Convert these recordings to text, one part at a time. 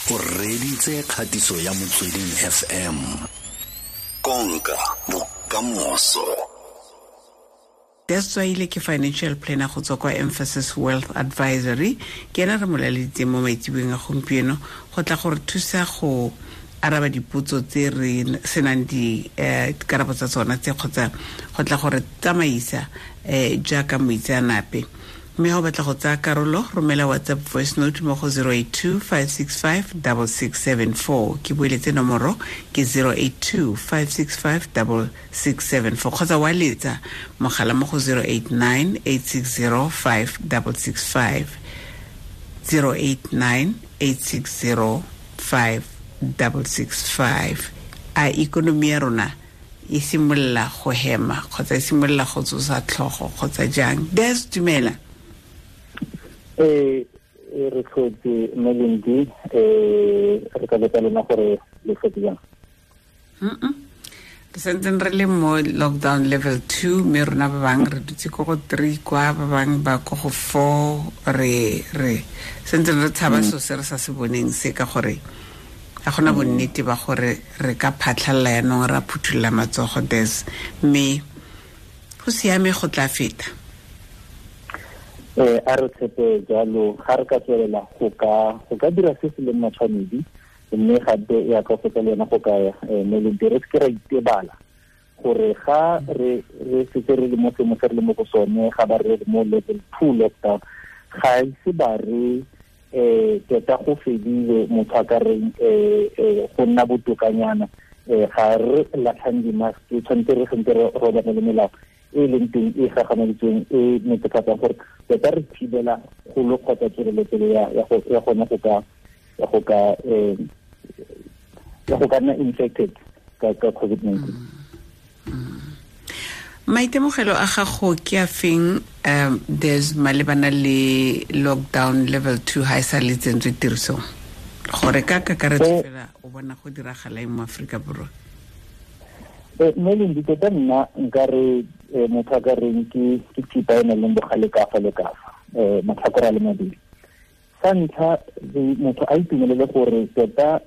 O reditse kgatiso ya Motsweding FM. Konka bokamoso. Des Tswaile ke financial planner go tswa kwa Emphasis Wealth Advisory. Ke ena re mo laleditseng mo maitseboeng a gompieno go tla gore thusa go araba dipotso tse re senang dikarabo tsa tsona tse, kgotsa go tla gore tsamaisa jaaka moitseanape. Mme ga o batla go tsaya karolo, romela WhatsApp voice note mo go 082 565 6674. Ke boeletse nomoro ke 082 565 6674, kgotsa wa letsa mogala mo go 089 860 5665, 089 860 5665. A ikonomi ya rona e simolola go hema kgotsa e simolola go tsosa tlhogo kgotsa jang? Des, dumela. Re tlhotse Melindi, re ka botsa lona gore le tlhotse jang? Re santseng re le mo lockdown level 2, mme rona ba bangwe re dutse ko go 3 kwa, ba bangwe ba ko go 4. Re santseng re tshaba so se re sa se boneng se, ka gore ga gona bonnete ba gore re ka phatlhalla yanong ra phuthulla matsogo, Des, mme go siame, go tla feta. A re tshepe jalo, ga re ka tswelela go ka dira se se leng matshwanedi, mme gape ya ka fetsa le yona go ka Melindi, re seke ra itebala gore ga re setse re le mo seemo se re le mo go sone, ga ba re mo level 2 lockdown, ga ise ba re tota go fedile, motho a ka reng go nna botokanyana. Ga re latlhang di-mask, tshwanetse re sentse re robane le melao e leng teng e gagamaditsweng e netefatsang gore tota re thibela kgolo kgotsa tswelelopele ya gone go ka nna infected ka COVID-19. Maitemogelo a gago ke a feng, Des, malebana le lockdown level 2 ha e sa le tsentswe tirisong, gore ka kakaretso fela o bona go diragala eng mo Aforika Borwa? Melindi, tota nna nka re motho a ka reng ke thipa e nang le bogale ka fa le ka fa, matlhakore a le mabedi. Sa ntlha, motho a itumelele gore tota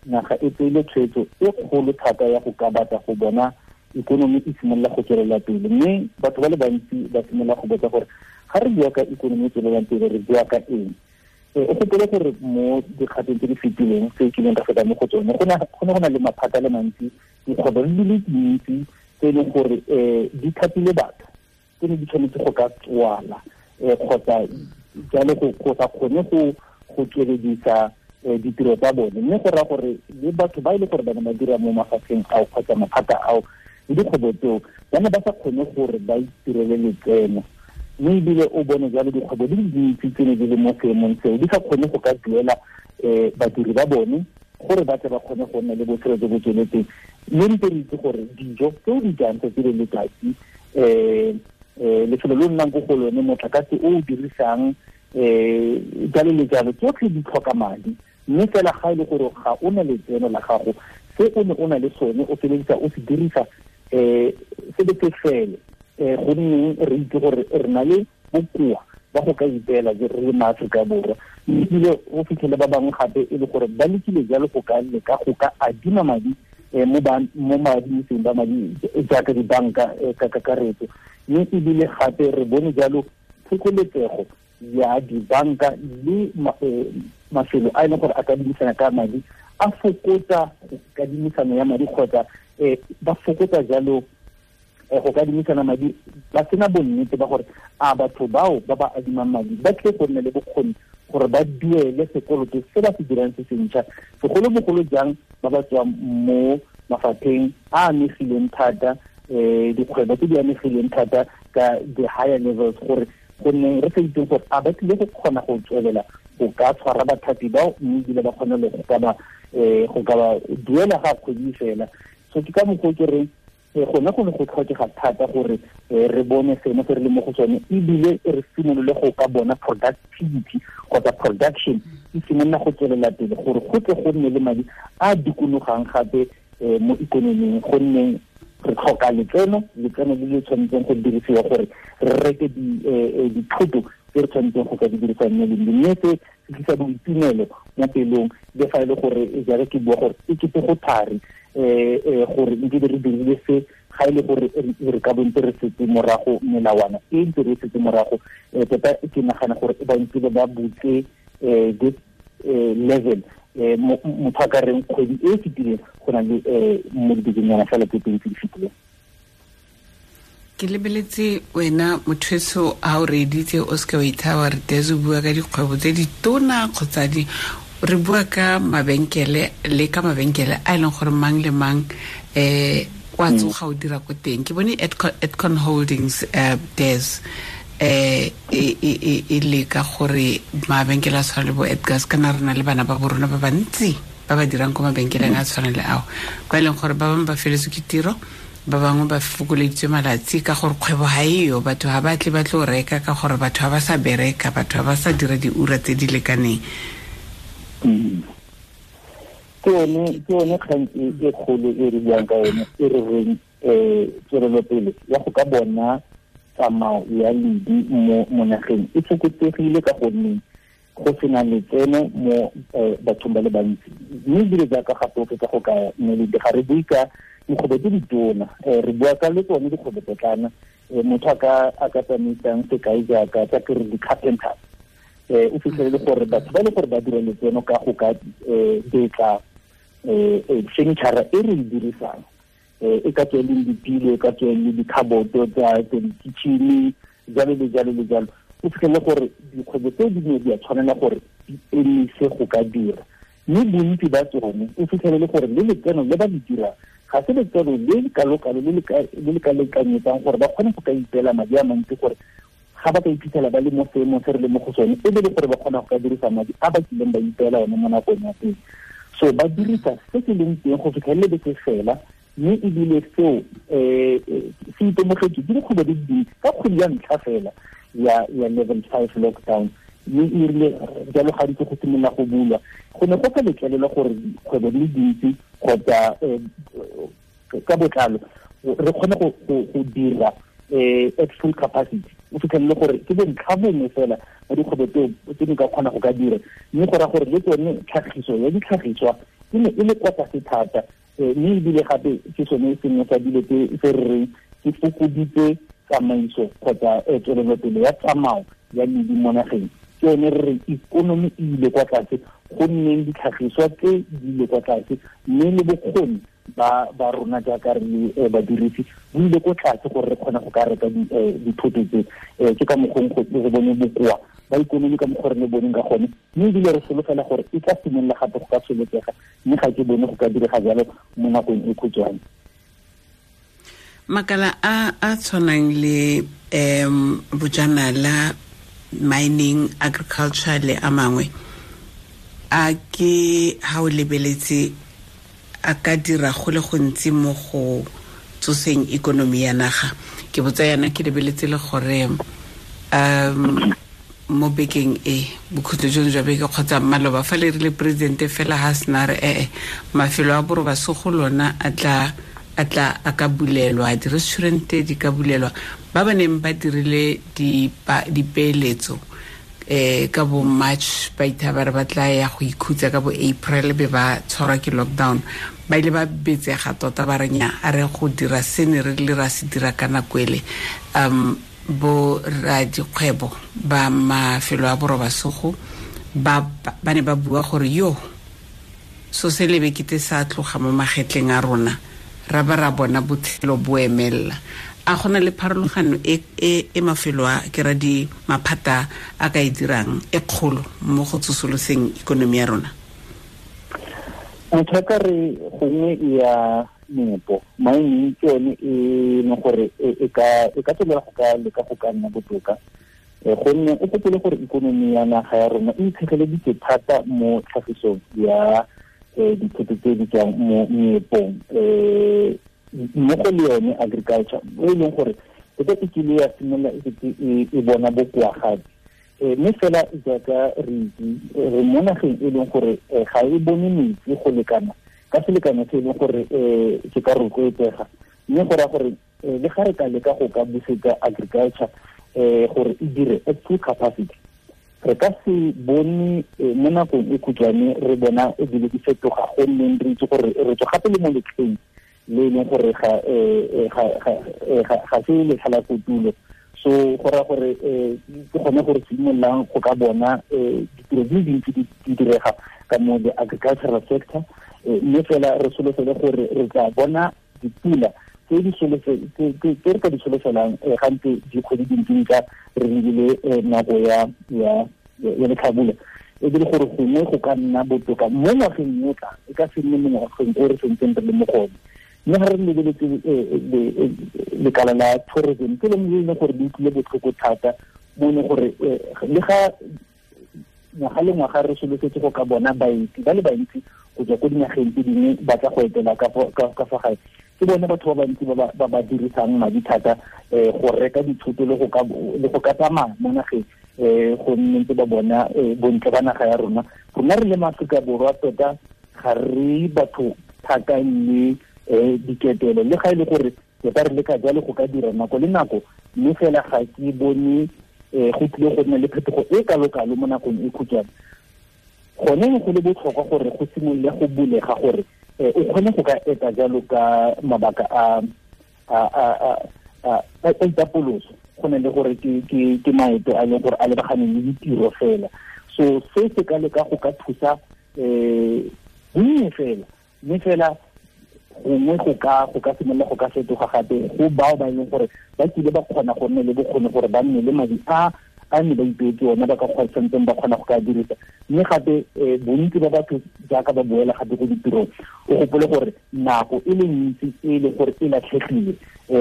naga e tseile tshwetso e kgolo thata ya go ka batla go bona ikonomi e simolola go tswelela pele, mme batho ba le bantsi ba simolola go botsa gore ga re bua ka ikonomi e tswelelang pele re bua ka eng. O gopole gore mo dikgatong tse di fetileng tse kileng ka feta mo go tsone, go ne go na le maphata a le mantsi, dikgwebo di le dintsi tse e leng gore di thapile batho tse ne di tshwanetse go ka tswala kgotsa jalo go sa kgone go tsweledisa ditiro tsa bone, mme go raya gore le batho ba e le gore ba ne ba dira mo mafatsheng ao kgotsa maphata ao le dikgwebo tseo ba ne ba sa kgone gore ba itirele letseno, mme ebile o bone jalo dikgwebo di le dintsi tse ne di le mo seemong seo di sa kgone go ka duela badiri ba bone gore ba tle ba kgone go nna le botshelo jo bo tsweletseng. Mme ntse re itse gore dijo tse o di jang tsatsi le letsatsi, lefelo le o nnang ko go lone, motlakase o o dirisang, jalo le jalo, tsotlhe di tlhoka madi. Mme fela ga e le gore ga o na letseno la gago, se o ne o na le sone o feleletsa o se dirisa se be se fele, gonne re itse gore re na le bokoa ba go ka ipeela re le maAforika Borwa. Mme ebile o fitlhele ba bangwe gape e le gore ba lekile jalo go ka leka go ka adima madi mo maadimiseng ba madi jaaka dibanka ka kakaretso, mme ebile gape re bone jalo phokoletsego ya dibanka le mafelo a e leng gore a kadimisana ka madi a fokotsa kadimisano ya madi, kgotsa ba fokotsa jalo go kadimisana madi, ba sena bonnete ba gore a batho bao ba ba adimang madi ba tle go nna le bokgoni gore ba duele sekoloto se ba se dirang se sentšha, segolobogolo jang ba ba tswang mo mafapheng a amegileng thata, dikgwebo tse di amegileng thata ka the higher levels, gore gonne re sa itseng gore a ba tlile go kgona go tswelela go ka tshwara bathapi bao, mme ebile ba kgone le go ka ba duela ga kgwedi fela. So ke ka mokgwa ke reng gone go ne go tlhokega thata gore re bone seemo se re le mo go sone, ebile re simolole go ka bona productivity kgotsa production e simolola go tswelela pele, gore go tle go nne le madi a dikologang gape mo ikonoming, gonne re tlhoka letseno le le tshwanetseng go dirisiwa gore re reke dithoto tse re tshwanetseng go ka di dirisa mme le mme se se tlisa boitumelo mo pelong le fa e le gore jaaka ke bua gore e kete go thari gore nke re dirile se ga e le gore re ka bontse re setse morago melawana e ntse re setse morago. Tota ke nagana gore ba ntse ba butse this level motho a ka reng kgwedi e fetileng go na le mo dibekeng fela tse pedi tse di fetileng. Ke lebeletse wena motho a o reeditse o seke wa ithaba re Des o bua ka dikgwebo tse di tona kgotsa di re bua ka mabenkele le ka mabenkele a e leng gore mang le mang wa tsoga o dira ko teng. Ke bone Edcon Holdings Des e leka gore mabenkele a tshwana le bo Edgars, kana re na le bana ba borona ba bantsi ba ba dirang ko mabenkeleng a tshwana le ao, ba e leng gore ba bangwe ba feletswe ke tiro, ba bangwe ba fokoleditswe malatsi ka gore kgwebo ga eyo, batho ga ba tle ba tlo reka ka gore batho ga ba sa bereka, batho ga ba sa dira diura tse di lekaneng. Ke yone kgang e kgolo e re buang ka yone e re reng tswelelopele ya go ka bona tsamao ya ledi mo nageng e fokotsegile ka gonne go sena letseno mo bathong ba le bantsi. Mme ebile jaaka gape o fetsa go ka meledi ga re bue ka dikgwebo tse ditona, re bua ka le tsone dikgwebo potlana. Motho a ka tsamaisang sekai jaaka tsa ke re di-carpenters, o fitlhelele gore batho ba le gore ba dira letseno ka go ka betla furniture e re e dirisang, e ka tswa e leng dipilo, e ka tswa e le dikhaboto tsa di-kitchen, jalo le jalo le jalo. O fitlhelele gore dikgwebo tse dingwe di a tshwanela gore di emise go ka dira, mme bontsi ba tsone o fitlhelele gore le letseno le ba le dirang ga se letseno le le kalokalo le le ka lekanyetsang gore ba kgone go ka ipeela madi a mantsi, gore ga ba ka iphitlhela ba le mo seemong se re le mo go sone e be le gore ba kgona go ka dirisa madi a ba kileng ba ipeela one mo nakong ya pele. So ba dirisa se se leng teng go fitlhelele be se fela, mme ebile seo se itemogetswe ke dikgwebo di le dintsi ka kgwedi ya ntlha fela ya level 5 lockdown. Mme e rile jalo ga ntse go simolola go bulwa, go ne go sa letlelelwa gore dikgwebo di le dintsi kgotsa ka botlalo re kgone go dira at full capacity. O fitlhelele gore ke bontlha bongwe fela ba dikgwebo tseo tse di ka kgona go ka dira, mme go raya gore le tsone tlhagiso ya ditlhagiswa e ne e le kwa tlase thata. Mme ebile gape ke sone sengwe sa dilo tse re reng ke fokoditse tsamaiso kgotsa tswelelopele ya tsamao ya ledi mo nageng. Ke yone re reng ikonomi e ile kwa tlase, go nneng ditlhagiswa tse di ile kwa tlase, mme le bokgoni ba rona jaaka re le badirisi bo ile ko tlase gore re kgone go ka reka dithoto tse. Ke ka mokgong re bone bokoa ba ikonomi ka mokgwa re le boneng ka gone, mme ebile re solofela gore e tla simolola gape go ka tsholetsega, mme ga ke bone go ka direga jalo mo nakong e khutshwane. Makala a tshwanang le bojanala, mining, agriculture le a mangwe, a ke ha o lebeletse a ka dira go le gontsi mo go tsoseng ikonomi ya naga? Ke botsa yana ke lebeletse le gore mo bekeng e bokhutlo jono jwa beke kgotsa maloba fa le rile presidente fela ha sena re mafelo a borobasogo lona a tla a ka bulelwa, di-restaurante di ka bulelwa, ba ba neng ba dirile dipeeletso ka bo March ba ithaba re ba tla ya go ikhutsa ka bo April be ba tshwarwa ke lockdown, ba ile ba betsega tota ba re nya a re go dira se ne re le ra se dira ka nako ele. Bo radikgwebo ba mafelo a borobasogo ba ne ba bua gore yo so se lebe kete sa tloga mo magetleng a rona, ra ba ra bona botshelo bo emella. A gona le pharologano e mafelo a ke ra di maphata a ka e dirang e kgolo mo go tsosoloseng ikonomi ya rona? Motho a ka re gongwe ya meepo, mining ke yone e leng gore e ka tswelela go ka leka go ka nna botoka, gonne o gopole gore ikonomi ya naga ya rona e itshegeleditse thata mo tlhagisong ya dithoto tse di tswang mo meepong, mmogo le yone agriculture e leng gore tota e kile ya simolola e bona bokoa gape. Mme fela jaaka re itse re mo nageng e leng gore ga e bone metsi go lekana ka selekano se e leng gore se ka rotloetsega, mme go raya gore le ga re ka leka go ka busetsa agriculture gore e dire at full capacity, re ka se bone mo nakong e khutshwane re bona e dilo di fetoga, gonne re itse gore re tswa gape le mo letlheng le e leng gore ga se letlha la kotulo. So go raya gore ke gone gore simololang go ka bona ditiro di le dintsi di direga ka mo the agricultural sector, mme fela re solofele gore re tla bona dipula tse re ka di solofelang gantse dikgwedi dintsi tsa re lebile nako ya letlhabula, e le gore gongwe go ka nna botoka mo ngwageng o tlang, e ka se nne mo ngwageng o re sentseng re le mo gone. Mme ga re lebeletse lekala la tourism, ke lengwe le e leng gore le utlwile botlhoko thata mo e leng gore le ga ngwaga le ngwaga re solofetse go ka bona baeti ba le bantsi go tswa ko dinageng tse dingwe ba tla go etela ka fa gae, ke bone batho ba bantsi ba ba dirisang madi thata go reka dithoto le go ka tsamaya mo nageng, go nne ntse ba bona bontle ba naga ya rona. Rona re le maAforika Borwa tota ga re batho thata le diketelo, le ga e le gore tota re leka jalo go ka dira nako le nako, mme fela ga ke bone go tlile go nna le phetogo e kalo-kalo mo nakong e khutshwane. Gone go le botlhokwa gore go simolole go bulega gore o kgone go ka eta jalo ka mabaka a itapoloso, go ne le gore ke maeto a leng gore a lebaganeng le ditiro fela. So se se ka leka go ka thusa bonnye fela, mme fela gongwe go ka simolola go ka fetoga gape go bao ba e leng gore ba kile ba kgona go nne le bokgoni gore ba nne le madi a ne ba ipeetse ona, ba ka santseng ba kgona go ka dirisa. Mme gape bontsi ba batho jaaka ba boela gape ko ditirong, o gopole gore nako e le ntsi e leng gore e latlhegile,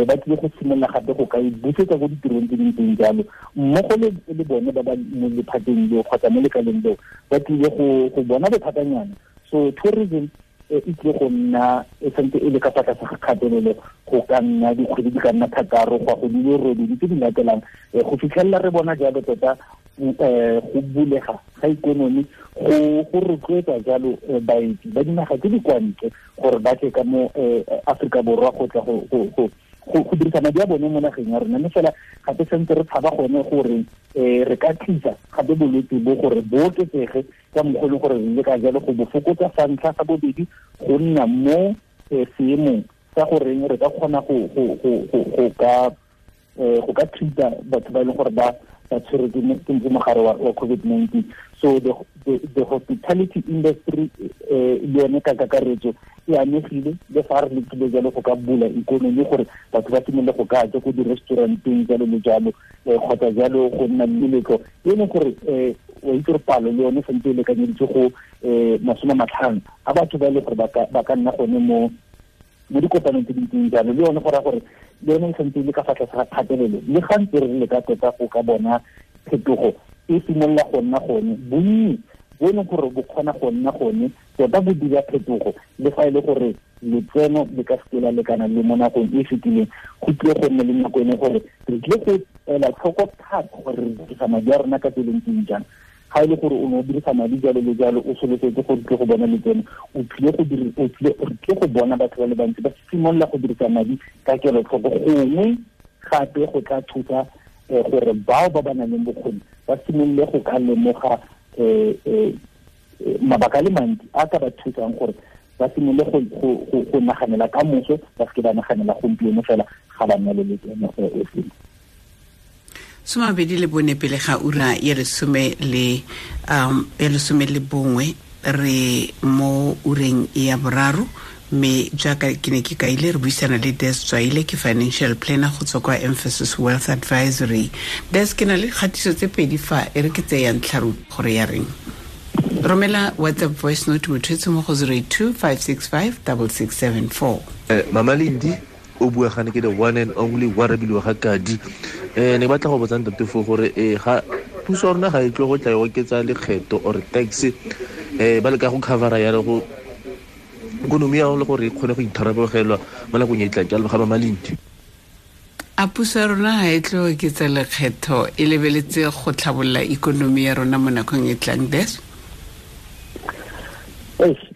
ba tlile go simolola gape go ka e busetsa ko ditirong tse dintseng jalo, mmogo le bone ba ba mo lephateng leo kgotsa mo lekaleng leo ba tlile go bona bothatanyana. So tourism e tlile go nna e santse e le ka fa tlase ga kgatelelo go ka nna dikgwedi di ka nna 6 go ya go di le 8 tse di latelang, go fitlhelela re bona jalo tota go bulega ga ikonomi go rotloetsa jalo baeti ba dinaga tse di kwa ntle gore ba tle ka mo Aforika Borwa go tla go dirisa madi a bone mo nageng ya rona. Mme fela gape santse re tshaba gone gore re ka tlisa gape bolwetse bo gore bo oketsege ka mokgwa e leng gore re leka jalo go bo fokotsa sa ntlha, sa bobedi go nna mo seemong sa goreng re ka kgona go ka treat-a batho ba e leng gore ba tshwerwe ke mogare wa COVID-19. So the hospitality industry le yone ka kakaretso e amegile, le fa re lekile jalo go ka bula ikonomi gore batho ba simolole go ka ja ko di-restauranteng jalo le jalo, kgotsa jalo go nna le meletlo e leng gore wa itse gore palo le yone santse e lekanyeditswe go 50 a batho ba e leng gore ba ka nna gone mo dikopanong tse dintseng jalo, le yone go raya gore le yone e santse e le ka fa tlase ga kgatelelo. Le ga ntse re leka tota go ka bona phetogo e simolola go nna gone, bonnye bo e leng gore bo kgona go nna gone tota bo dira phetogo, le fa e le gore letseno le ka seke la lekana le mo nakong e fetileng, go tlile go nne le nako e leng gore re tlile go ela tlhoko thata gore re dirisa madi a rona ka tsela e ntseng jang. Ga e le gore o ne o dirisa madi jalo le jalo, o solofetse gore tlile go bona letseno, o tlile go bona batho ba le bantsi ba simolola go dirisa madi ka kelotlhoko, gongwe gape go tla thusa gore bao ba ba nang le bokgoni ba simolole go ka lemoga mabaka a le mantsi a ka ba thusang gore ba simolole go naganela ka moso, ba seke ba naganela gompieno fela ga ba nna le letseno e sengwe. 24 pele ga ura ya 11 re mo ureng ya 3, mme jaaka ke ne ke kaile re buisana le Des Tswaile, ke financial planner go tswa kwa Emphasis Wealth Advisory. Des, ke na le kgatiso tse 2 fa e re ke tseyang tlharu gore ya reng. Romela WhatsApp voice note motho mo go 082 565 6674. Mama Lindi o bua gane ke the one and only wa Rabilwe ga Kadi. Ne batla go botsa ntate fo gore ga puso ya rona ga e tlo go tla e oketsa lekgetho or tax, ba leka go covera ya go ikonomi ya le gore e kgone go itharabologelwa mo nakong e tlang. Ke a leboga Mama Lindi. A puso ya rona ga e tlo oketsa lekgetho e lebeletse go tlhabolola ikonomi ya rona mo nakong e tlang, Des?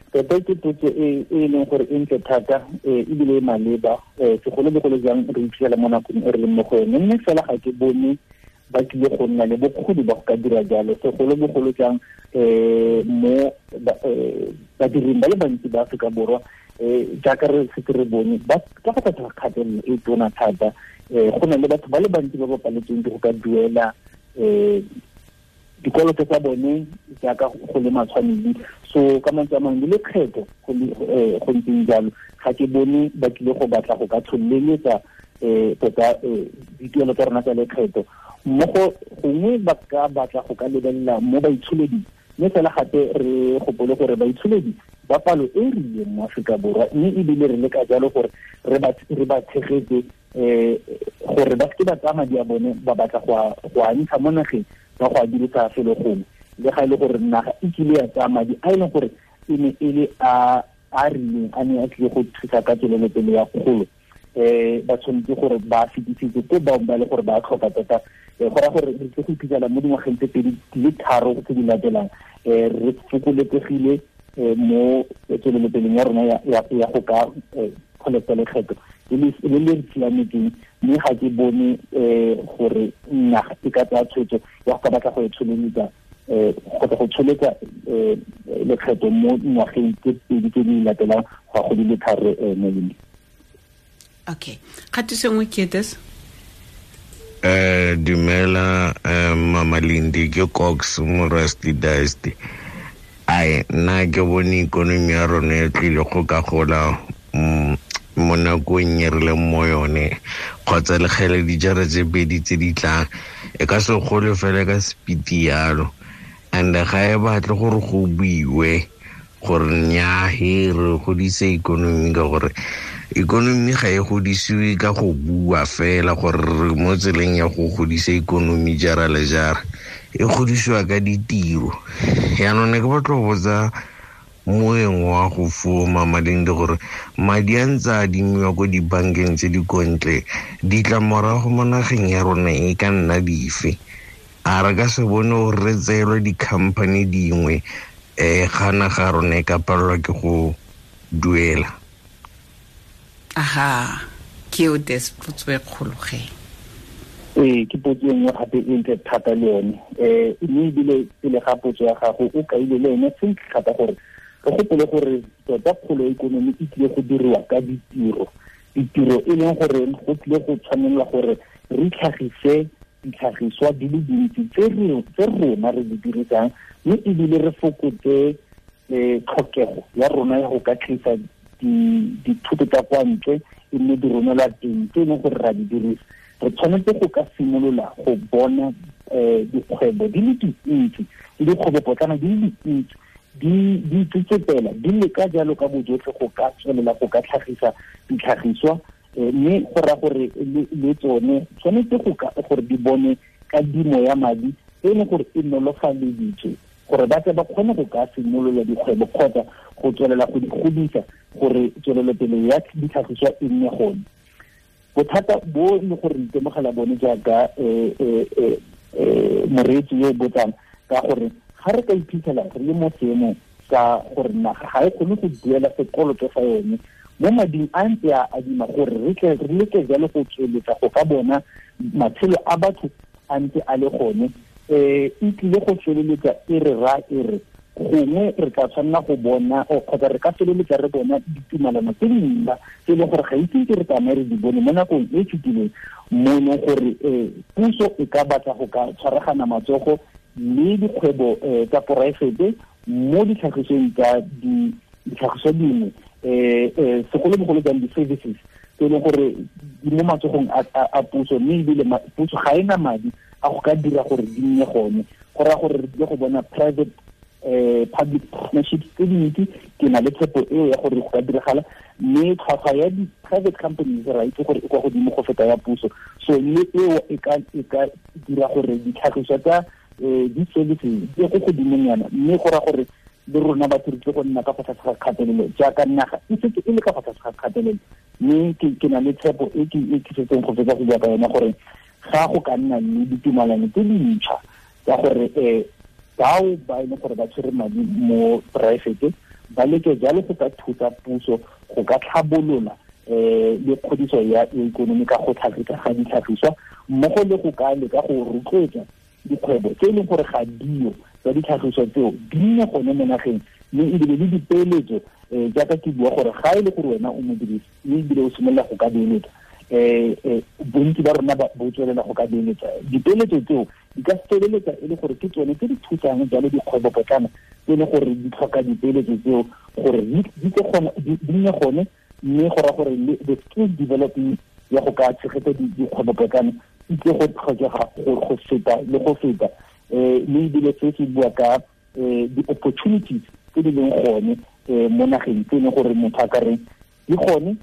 Tota ke potso e leng gore e ntle thata, ebile e maleba, segolobogolo jang re iphitlhela mo nakong e re leng mo go yone. Mme fela ga ke bone ba tlile go nna le bokgoni ba go ka dira jalo, segolobogolo jang mo badiring ba le bantsi ba Aforika Borwa, jaaka re setse re bone ba ka fa tlase ga kgatelelo e tona thata. Go na le batho ba le bantsi ba ba paletsweng ke go ka duela dikoloto tsa bone jaaka go le matshwanedi. So ka mantswe a mangwe le lekgetho go ntseng jalo, ga ke bone ba tlile go batla go ka tsholeletsa tota dituelo tsa rona tsa lekgetho. Mmogo gongwe ba ka batla go ka lebelela mo baitsholeding, mme fela gape re gopole gore baitsholedi ba palo e rileng mo Aforika Borwa, mme ebile re leka jalo gore re ba tshegetse gore ba seke ba tsaya madi a bone ba batla go a ntsha mo nageng ba go a dirisa felo gongwe, le ga e le gore naga e kile ya tsaya madi a e leng gore e ne e le a rileng a ne a tlile go thusa ka tswelelopele ya kgolo. Ba tshwanetse gore ba fetisetse ko bangwe ba le gore ba tlhoka tota. Go raya gore re tle go iphitlhela mo dingwageng tse 2 le 3 tse di latelang re fokoletsegile mo tswelelopeleng ya rona ya go ka collecta lekgetho le le siametseng, mme ga ke bone gore naga e ka tsaya tshwetso ya go ka batla go e tsholeletsa kgotsa go tsholetsa lekgetho mo ngwageng tse 2 tse di latelang go ya go di le 3 mo leng. Okay, kgatiso nngwe ke this. Dumela Mama Lindi, ke Cox mo Rusty Dusty. Ai nna ke bone ikonomi ya rona e tlile go ka gola mo nakong e re leng mo yone, kgotsa lekgele dijara tse 2 tse di tlang e ka se gole fela ka speed yalo. And ga e batle gore go buiwe gore nnyaa he re godise ikonomi, ka gore ikonomi ga e godisiwe ka go bua fela gore re mo tseleng ya go godisa ikonomi jara le jara, e godisiwa ka ditiro. Yaanong ne ke batla go botsa moeng wa go fuo Mama Lindi gore madi a ntse a adimiwa ko dibankeng tse di kontle, ditlamorago mo nageng ya rona e ka nna dife? A re ka se bone gore re tseelwe di-company dingwe ga naga rona e ka palelwa ke go duela? Aha, ke o des potso e kgolo ge. Ke potso e nngwe gape e ntle thata le yone. Mme ebile pele ga potso ya gago o kaile le yone sentle thata gore re gopole gore tota kgolo ya ikonomi e tlile go diriwa ka ditiro. Ditiro e leng gore go tlile go tshwanelwa gore re tlhagise ditlhagiswa di le dintsi tse rona re di dirisang, mme ebile re fokotse tlhokego ya rona ya go ka tlisa dithuto tsa kwa ntle e nne di romelwa teng tse e leng gore ra di dirisa. Re tshwanetse go ka simolola go bona dikgwebo di le dintsi le dikgwebopotlana di le dintsi di itsetsepela di leka jalo ka bojotlhe go ka tswelela go ka tlhagisa ditlhagiswa, mme go raya gore le tsone tshwanetse gore di bone kadimo ya madi e leng gore e nolofaleditswe gore ba tle ba kgone go ka simolola dikgwebo kgotsa go tswelela go di godisa gore tswelelopele ya ditlhagiswa e nne gone. Bothata bo e le gore re itemogela bone jaaka moreetsi yo o botsang, ka gore ga re ka iphitlhela re le mo seemong sa gore naga ga e kgone go duela sekoloto sa yone mo mading a ntse a adima, gore re tle re leke jalo go tsweletsa go ka bona matshelo a batho a ntse a le gone, e tlile go feleletsa e re ra e re gongwe re tla tshwanela go bona kgotsa re ka feleletsa re bona ditumalano tse dintšha tse e leng gore ga itse ke re tsamaye re di bone mo nakong e fetileng, mo e leng gore puso e ka batla go ka tshwaragana matsogo le dikgwebo tsa poraefete mo ditlhagisong tsa ditlhagiso dingwe, segolobogolo jang di-services tse e leng gore di mo matsogong a puso, mme ebile puso ga e na madi a go ka dira gore di nne gone. Go raya gore re tlile go bona private public partnerships tse dintsi. Ke na le tshepo eo ya gore go ka diragala, mme tlhwatlhwa ya di-private companies ra itse gore e kwa godimo go feta ya puso. So mme eo e ka dira gore ditlhagiswa tsa di-services di ye ko godimonyana, mme go raya gore le rona batho re tle go nna ka fa tlase ga kgatelelo jaaka naga e setse e le ka fa tlase ga kgatelelo. Mme ke na le tshepo e ke setseng go fetsa go bua ka yone gore ga go ka nna le ditumalano tse dintšha tsa gore bao ba e leng gore ba tshwere madi mo poraefete ba leke jalo go ka thusa puso go ka tlhabolola Le kgodiso ya ikonomi ka go tlhagisa ga ditlhagiswa mmogo le go ka leka go rotloetsa dikgwebo tse e leng gore ga dio tsa ditlhagiswa tseo di nne gone mo nageng, mme ebile le dipeeletso jaaka ke bua gore ga e le gore wena o modirisi mme ebile o simolola go ka beeletsa, bontsi ba rona bo tswelela go ka beeletsa. Dipeeletso tseo di ka feleletsa e le gore ke tsone tse di thusang jalo dikgwebopotlana tse e leng gore di tlhoka dipeeletso tseo gore di nne gone, mme go raya gore the skill development ya go ka tshegetsa dikgwebopotlana e tle go tlhokega go feta le go feta. Mme ebile se se bua ka di-opportunities tse di leng gone mo nageng tse e leng gore motho a ka reng di gone,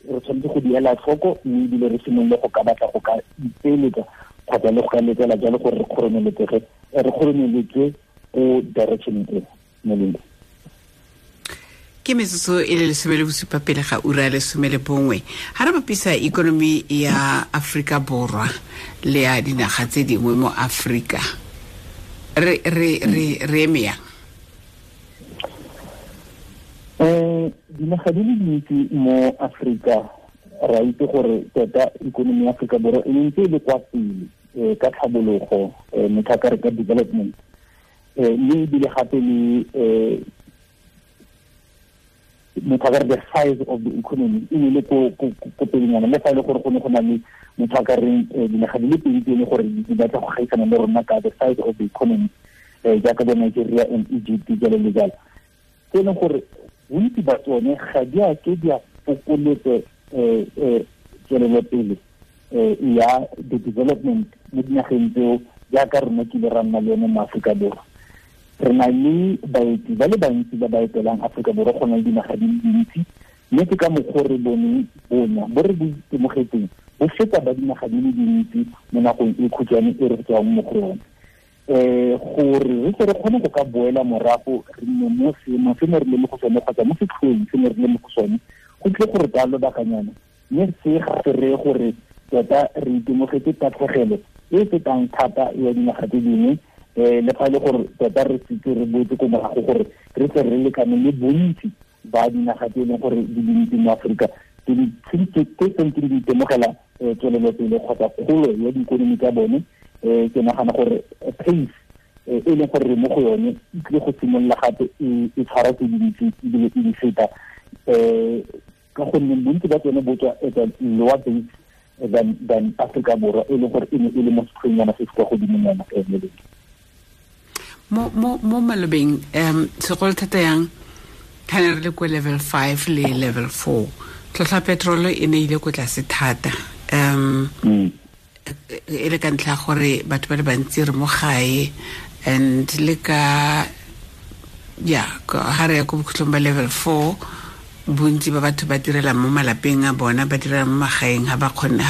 re tshwanetse go di ela tlhoko, mme ebile re simolole go ka batla go ka ipeeletsa kgotsa le go ka letela jalo gore re kgoromeletswe ko direction e molemo. Ke metsotso e le 17 pele ga ura ya 11. Ha re bapisa ikonomi ya Afrika Borwa le ya dinaga tse dingwe mo Afrika, re eme yang? Dinaga di le dintsi mo Afrika re a itse gore tota ikonomi ya Afrika Borwa e ntse e le kwa pele ka tlhabologo, motho a ka re ka development, mme ebile gape le motho a ka re the size of the economy e ne le ko pelenyana, le fa e le gore go ne go na le motho a ka reng dinaga di le pedi tse e le gore di batla go gaisana le rona ka the size of the economy, jaaka bo Nigeria and Egypt jalo le jalo, tse e leng gore bontsi ba tsone ga di a ke di a fokoletse tswelelopele ya the development mo dinageng tseo jaaka rona kile ra nna le yone mo Aforika Borwa. Re na le baeti ba le bantsi ba ba etelang Aforika Borwa go na le dinaga di le dintsi, mme ke ka mokgwa re boneng bonya bo re bo itemogetseng bo feta ba dinaga di le dintsi mo nakong e khutshwane e re tswang mo go yone. Gore re tle re kgone go ka boela morago re nne mo seemong se ne re le mo go sone kgotsa mo setlhoeng se ne re le mo go sone, go tle gore ka lobakanyana, mme se ga se reye gore tota re itemogetse tatlhegelo e fetang thata ya dinaga tse dingwe, le fa e le gore tota re setse re boetse ko morago gore re tle re lekane le bontsi ba dinaga tse e leng gore di dintsi mo Aforika tse tsentseng di itemogela tswelelopele kgotsa kgolo ya diikonomi tsa bone. Ke nagana gore pace e leng gore re mo go yone e tlile go simolola gape e tshwara tse dintsi ebile e di feta, ka gonne bontsi ba tsone bo tswa at a lower base than Afrika Borwa e leng gore e ne e le mo setlhoengnyana se se kwa godimonyana. Mo malobeng segolo thata yang ga ne re le ko level 5 le level 4, tlhotlhwa petrolo e ne ile ko tlase thata, e le ka ntlha gore batho ba le bantsi re mo gae, and le ka ya ga re ya ko bokhutlong ba level 4, bontsi ba batho ba direla mo malapeng a bona, ba direla mo magaeng, ga ba kgone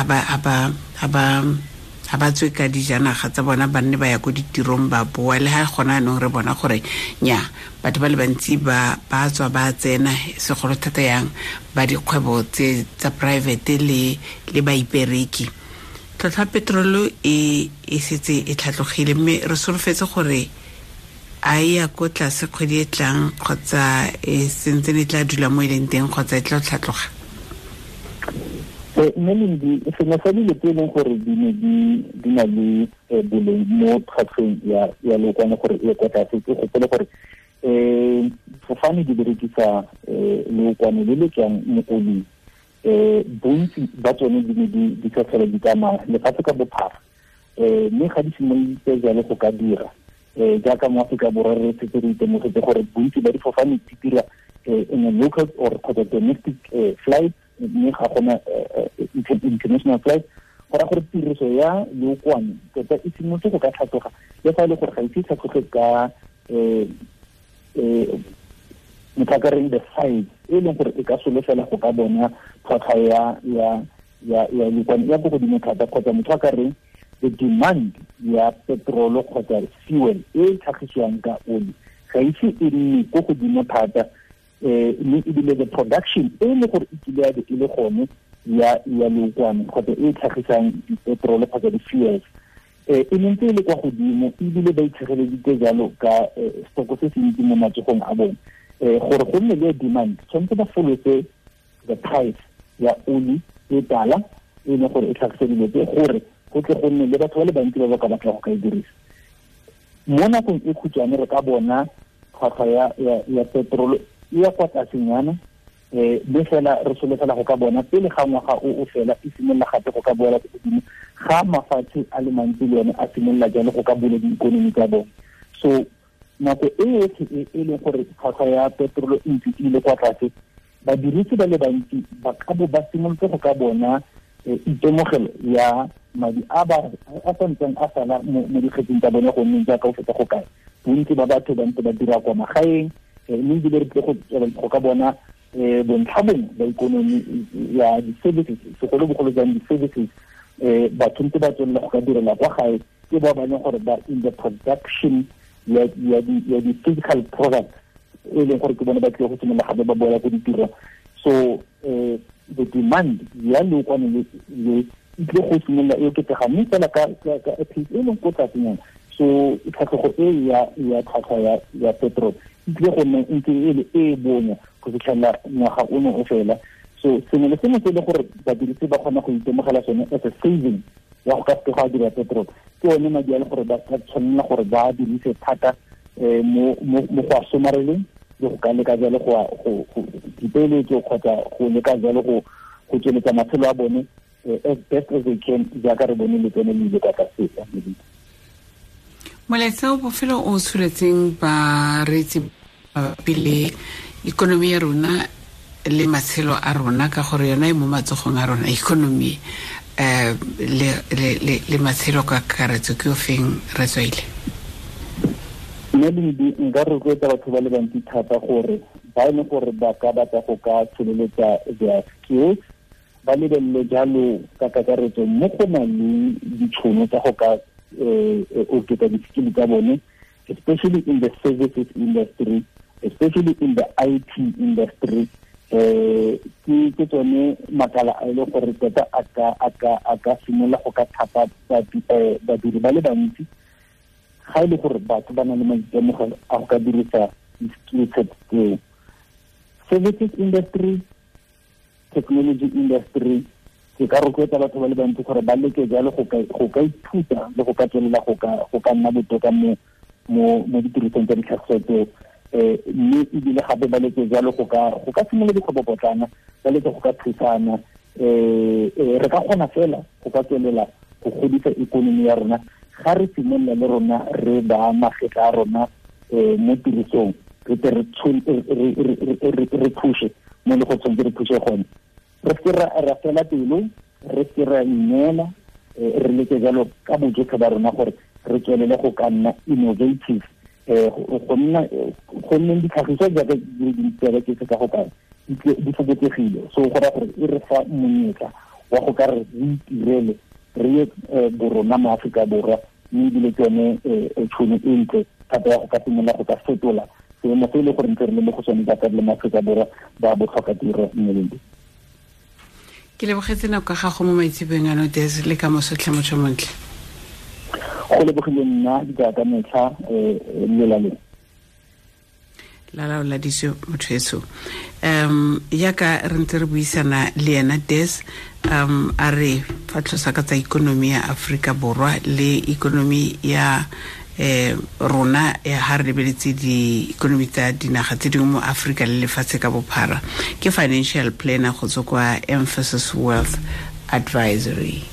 ga ba tswe ka dijanaga tsa bona, ba nne ba ya ko ditirong ba boa. Le ga gona anong re bona gore nya batho ba le bantsi ba tswa ba tsena, segolo thata yang ba dikgwebo tse tsa private le baipereki. Tlhotlhwa petrolo e setse e tlhatlogile, mme re solofetse gore a e ya ko tlase kgwedi e tlang kgotsa e sentse e tla dula mo e leng teng kgotsa e tla tlhatloga? Mme Lindi, sengwe sa dilo tse e leng gore di ne di na le boleng mo tlhwatlhweng ya leokwane gore e kwa tlase, ke gopole gore fofane di berekisa leokwane le le tswang mo oling. Bontsi ba tsone di ne di sa tlhole di tsamaya lefatshe ka bophara, mme ga di simoloditse jalo go ka dira, jaaka mo Aforika Borwa re setse re itemogetse gore bontsi ba difofane di dira in a local or kgotsa domestic flight, mme ga gona international flight. Go raya gore tiriso ya leokwane tota e simolotse go ka tlhatloga, le fa e le gore ga ise e tlhatloge ka motho a ka reng the size e leng gore e ka solofela go ka bona tlhwatlhwa ya leokwane ya ko godimo thata, kgotsa motho a ka reng the demand ya petrolo kgotsa fuel e e tlhagisiwang ka oli ga ise e nne ko godimo thata, mme ebile the production e leng gore e kile ya be e le gone ya leokwane kgotsa e e tlhagisang dipetrolo kgotsa di-fuels e ne ntse e le kwa godimo, ebile ba itshegeleditse jalo ka stoko se se ntsi mo matsogong a bone. Gore go nne le demand, tshwanetse ba folose the price ya oli e tala e leng gore e tlhagise dilo tse gore go tle go nne le batho ba le bantsi ba ba ka batla go ka e dirisa. Mo nakong e khutshwane re ka bona tlhwatlhwa ya petrol e ya kwa tlasenyana, mme fela re solofela go ka bona pele ga ngwaga o fela e simolola gape go ka boela ko godimo ga mafatshe a le mantsi le one a simolola jalo go ka bula diikonomi tsa bone. So nako e yotlhe e leng gore tlhwatlhwa ya petrol e ntse e ile kwa tlase, badirisi ba le bantsi ba ka bo ba simolotse go ka bona itemogelo ya madi a ba a santseng a sala mo dikgetsing tsa bone, gonne jaaka o fetsa go kae bontsi ba batho ba ntse ba dira kwa magaeng, mme ebile re tle go ka bona bontlha bongwe ba ikonomi ya di-services, segolobogolo jang di-services, batho ntse ba tswelela go ka direla kwa gae, ke ba ba leng gore ba in the production ya di-physical products e leng gore ke bone ba tlile go simolola gape ba boela ko ditirong. So the demand ya leokwane le e tlile go simolola e oketsega, mme fela ka pace e leng ko tlasenyana. So tlhatlhogo e ya tlhwatlhwa ya petrol e tlile go nna ntse e le e bonya go fitlhela ngwaga ono o fela. So sengwe le sengwe se e leng gore badirisi ba kgona go itemogela sone as a saving ya go ka seke go a dira petrol, ke one madi a le gore ba ka tshwanela gore ba dirise thata mo go a somareleng le go ka leka jalo go dipeeletso kgotsa go leka jalo go tsweletsa matshelo a bone as best as they can, jaaka re bone letseno le ile kwa tlase. Molaetsa o bofelo o tsholetseng bareetsi mabapi le ikonomi ya rona le matshelo a rona, ka gore yona e mo matsogong a rona ikonomi le matshelo ka kakaretso, ke o feng re tswaile? Nna nka rotloetsa batho ba le bantsi thata gore ba e leng gore ba ka batla go ka tsholeletsa their skills, ba lebelele jalo ka kakaretso mo go nang le ditšhono tsa go ka oketsa di-skill tsa bone, especially in the services industry, especially in the IT industry. Ke tsone makala a e leng gore tota a ka simolola go ka thapa badiri ba le bantsi, ga e le gore batho ba na le maitemogelo a go ka dirisa di-skill set tseo. Services industry, technology industry, ke ka rotloetsa batho ba le bantsi gore ba leke jalo go ka ithuta le go ka tswelela go ka nna botoka mo ditirisong tsa ditlhagiso tseo, mme ebile gape ba leke jalo go ka simolola dikgwebopotlana, ba leke go ka thusana. Re ka kgona fela go ka tswelela go godisa ikonomi ya rona ga re simolola le rona re ba magetla a rona mo tirisong, re tle re phushe mo le go tshwanetse re phushe gone. Re seke ra fela pelo, re seke ra ineela, re leke jalo ka bojotlhe ba rona gore re tswelele go ka nna innovative, go nneng ditlhagiso jaaka di le dintsi jaaka ke ka go kae di fokotsegile. So go raya gore e re fa monyetla wa go ka re itirele re ye borona mo Aforika Borwa, mme ebile ke yone tšhono e ntle thata ya go ka simolola go ka fetola seemo se e le gore ntse re le mo go sone jaaka le mo Aforika Borwa ba botlhokatiro mmeleng. Ke lebogetse nako ya gago mo maitseboeng ano, Des, le ka moso tlhe motho montle. Go lebogile nna jaaka metlha lelaleng. La laoladitswe motho eso. Yaka re ntse re buisana le ena Des, a re fa tlhosa ka tsa ikonomi ya Aforika Borwa le ikonomi ya rona ya ha re lebeletse di-ikonomi tsa dinaga tse dingwe mo Aforika le lefatshe ka bophara. Ke financial planner go tswa kwa Emphasis Wealth Advisory.